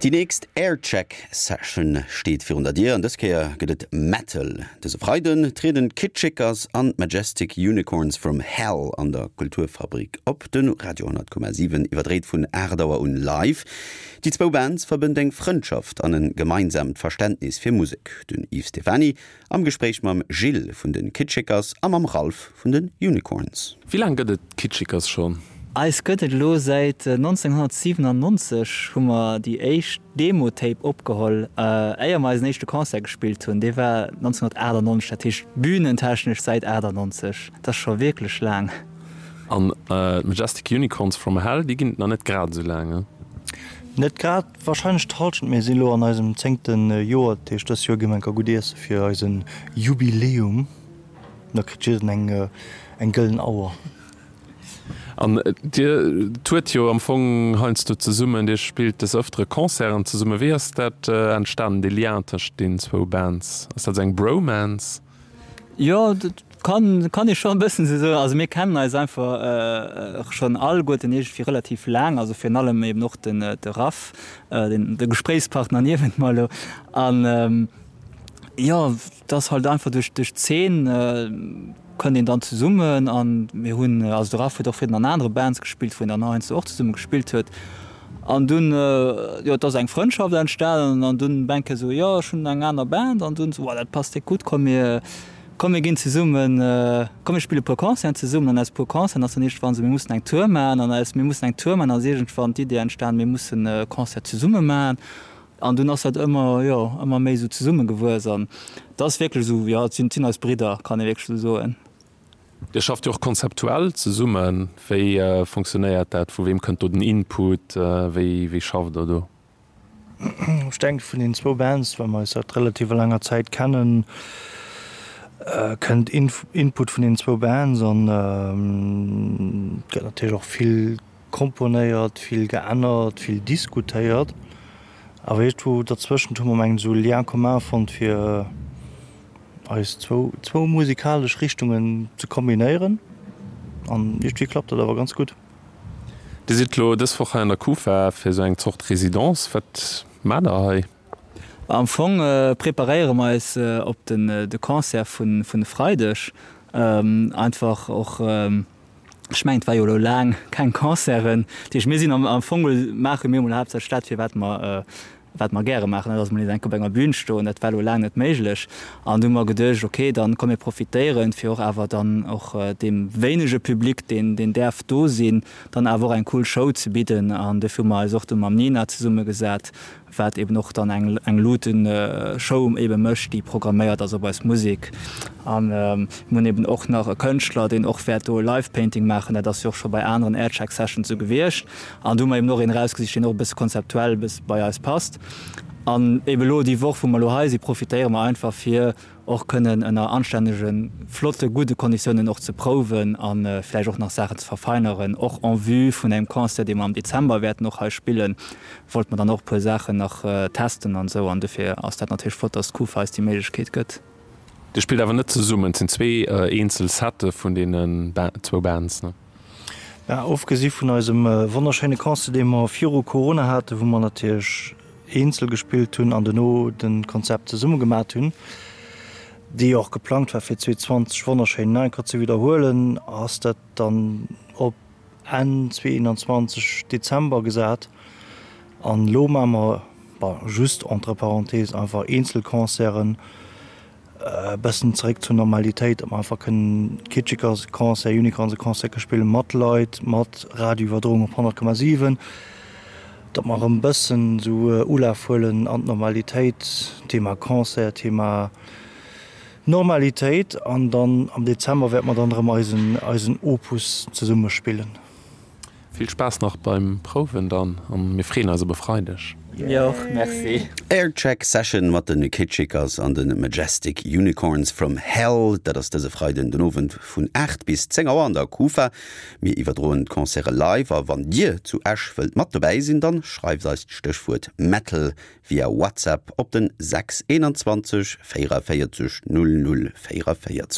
Déi nächst Aircheck Session steet virun der Dier an dës Kéier gëtt et Metal. Dëse Freiden trieden d'Kitchikers an d'Majestic Unicorns from Hell an der Kulturfabrik op. De Radio 10,7 iwwerdréit vun 8 Auer un live. Déi zwou Bands verbënnt eng Frëndschaft an e gemeinsaamt Verständnis fir Musek. Den Yves Stephany Am Gespréich mam Gilles vun den Kitschikers a mam Ralph vun den Unicorns. Wéi laang gëtt et d'Kitschikers schonn? Eis gëtt et elo säit 1997, hu mer déi éischt Demo-Tape opgeholl, éier mer eisen éischte Concert gespillt hunn. Dee war 1998, dat heescht bühnentechnesch säit 98. Dat ass scho wierklech laang. An d'Majestic Unicorns from Hell, déi ginn et nach net grad esou laang, ne? Net grad. Wahrscheinlech d'Halschent, mir sinn elo an eisem zéngte Joer, dat heescht dës Joer gi mer enker gutt iesse fir eise Jubiläum. Da kritt jidden eng eng gëllen Auer. An dir tourt jo am Fong heiansdo zesummen, dir spillt des Ëftere Concerten zesummen. Wéi ass dat entstanen, dee Lien tëscht deenen zwou Bands? Ass dat esou eng Bromance? Jo, dat kann kann ee scho e bëssen esou soen. Also mir kennen eis einfach schonn alleguerten iergendwéi relativ laang, also virun allem eben och den de Raph, den de Gespréichspartner niewent mer elo. An jo, et ass halt einfach duerch duerch d'Zeen kënnt een dann zesummen an mir hunn, also de Raph huet och virdrun an anere Bands gespillt, wou een dann heiansdo och zesumme gespillt huet. An dunn, jo, et ass eng Frëndschaft entstanen an dunn Bänke sou, jo, ech hunn eng aner Band an dunn sou, oh, dat passt déck gutt, komm mir, komm mir ginn zesummen, komm mir spille puer Concerten zesummen. An aus puer Concerten ass dann iergendwann sou, mir mussen eng Tour maachen an aus mir mussen eng Tour maachen ass iergendwann d'Idee entstanen, mir mussen e Concert zesumme maachen. An dunn ass dat ëmmer, jo, ëmmer méi sou zesummegewuess an et ass wierklech esou, jo, et sinn, et sinn eis Bridder, kann ee wierklech esou soen. Dir schafft jo och konzeptuell zesummen. Wéi fonctionnéiert dat? Vu weem kënnt do den Input? Wéi wéi schafft der do? Ech denken, vun den zwou Bands, well mer eis säit relativer laanger Zäit kennen, kënnt Input vun den zwou Bands an et gëtt natierlech och vill komponéiert, vill geännert, vill diskutéiert. Awer iergendwou derzwëschent hu mer mengen ech esou e Lien commun fonnt fir eis zwou zwou musikalesch Richtungen ze kombinéieren an iergendwéi klappt dat awer ganz gutt. Dir sidd elo dës Woch hei an der Kufa fir esou eng Zort Résidence. Wat maacht der hei? Am Fong preparéiere mer eis op den de Concert vun vun e Freideg. Einfach och, ech mengen et war jo elo laang keng Concerten. Dat heescht mir sinn am am Fong maache mir emol haaptsächlech dat fir wat mer wat mer gäre maachen, dat ass emol nees eng Kéier op enger Bühn stoen, dat war elo laang net méiglech. An du hu mer geduecht, okay, dann komm mir profitéieren, fir och awer dann och deem wéinege Public, deen deen däerf do sinn, dann awer och eng cool Show ze bidden. An dofir hu mer eis och du mam Nina zesummegesat, wat eben och dann eng eng Luutenshow ebe mécht, déi programméiert ass op eis Musek. An mir hunn eben och nach e Kënschtler, deen och wäert do e Live Painting maachen, dat ass jo och scho bei aneren Aircheck Sessions esou gewiescht. An do hu mer eben och een erausgesicht, deen och e bësse konzeptuell e bësse bei eis passt. An eben elo déi Woch, wou mer elo hei sinn, profitéiere mer einfach, fir och kënnen ënner anstännegen, flotte, gudde Konditiounen och ze prouwen a vläicht och nach Saachen ze verfeineren. Och en vue vun engem Concert, dee mer am Dezember wäerten och hei spillen, wollte mer dann och e puer Saachen nach testen an esou. An dofir ass dat natierlech flott, dass d'Kufa eis déi Méiglechkeet gëtt. Dir spillt awer net zesummen, et sinn zwee eenzel Sette vun deenen zwou Bands, ne? Mä ofgesi vun eisem wonnerschéine Concert, dee mer viru Corona haten, wou mer natierlech eenzel gespillt hunn an dono de Konzept zesumme gemat hunn, dee jo och geplangt war fir 2020 wonnerschéin nach eng Kéier ze widderhuelen, ass dat dann op Enn 2021, Dezember gesat. An elo maache mer, bon, just entre parenthèses, einfach eenzel Concerten. E bëssen zeréck zur Normalitéit, datt mer einfach kënnen Kitschekers-Concert, Unicorns-Concert ke spillen, mat Leit, mat Radioiwwerdroung op 100,7, datt mer erëm e bëssen esou Ulaf huelen an d'Normalitéit, Thema Concert, Thema Normalitéit. An dann am Dezember wäerte mer dann erëm eisen, eisen Opus zesumme spillen. Vill Spaass nach beim Prouwen dann an mir freeën eis op e Freideg. Mir och, merci. Aircheck Session mat de Kitschikers an de Majestic Unicorns from Hell. Dat ass dëse Freiden den Owend vun 8 bis 10 Auer an der Kufa. Mir iwwerdroen d'Concerte live a wann dir zu Esch wëllt mat dobäi sinn, dann schreift eis d'Stéchwuert Metal via WhatsApp op den 6 21 44 00 44.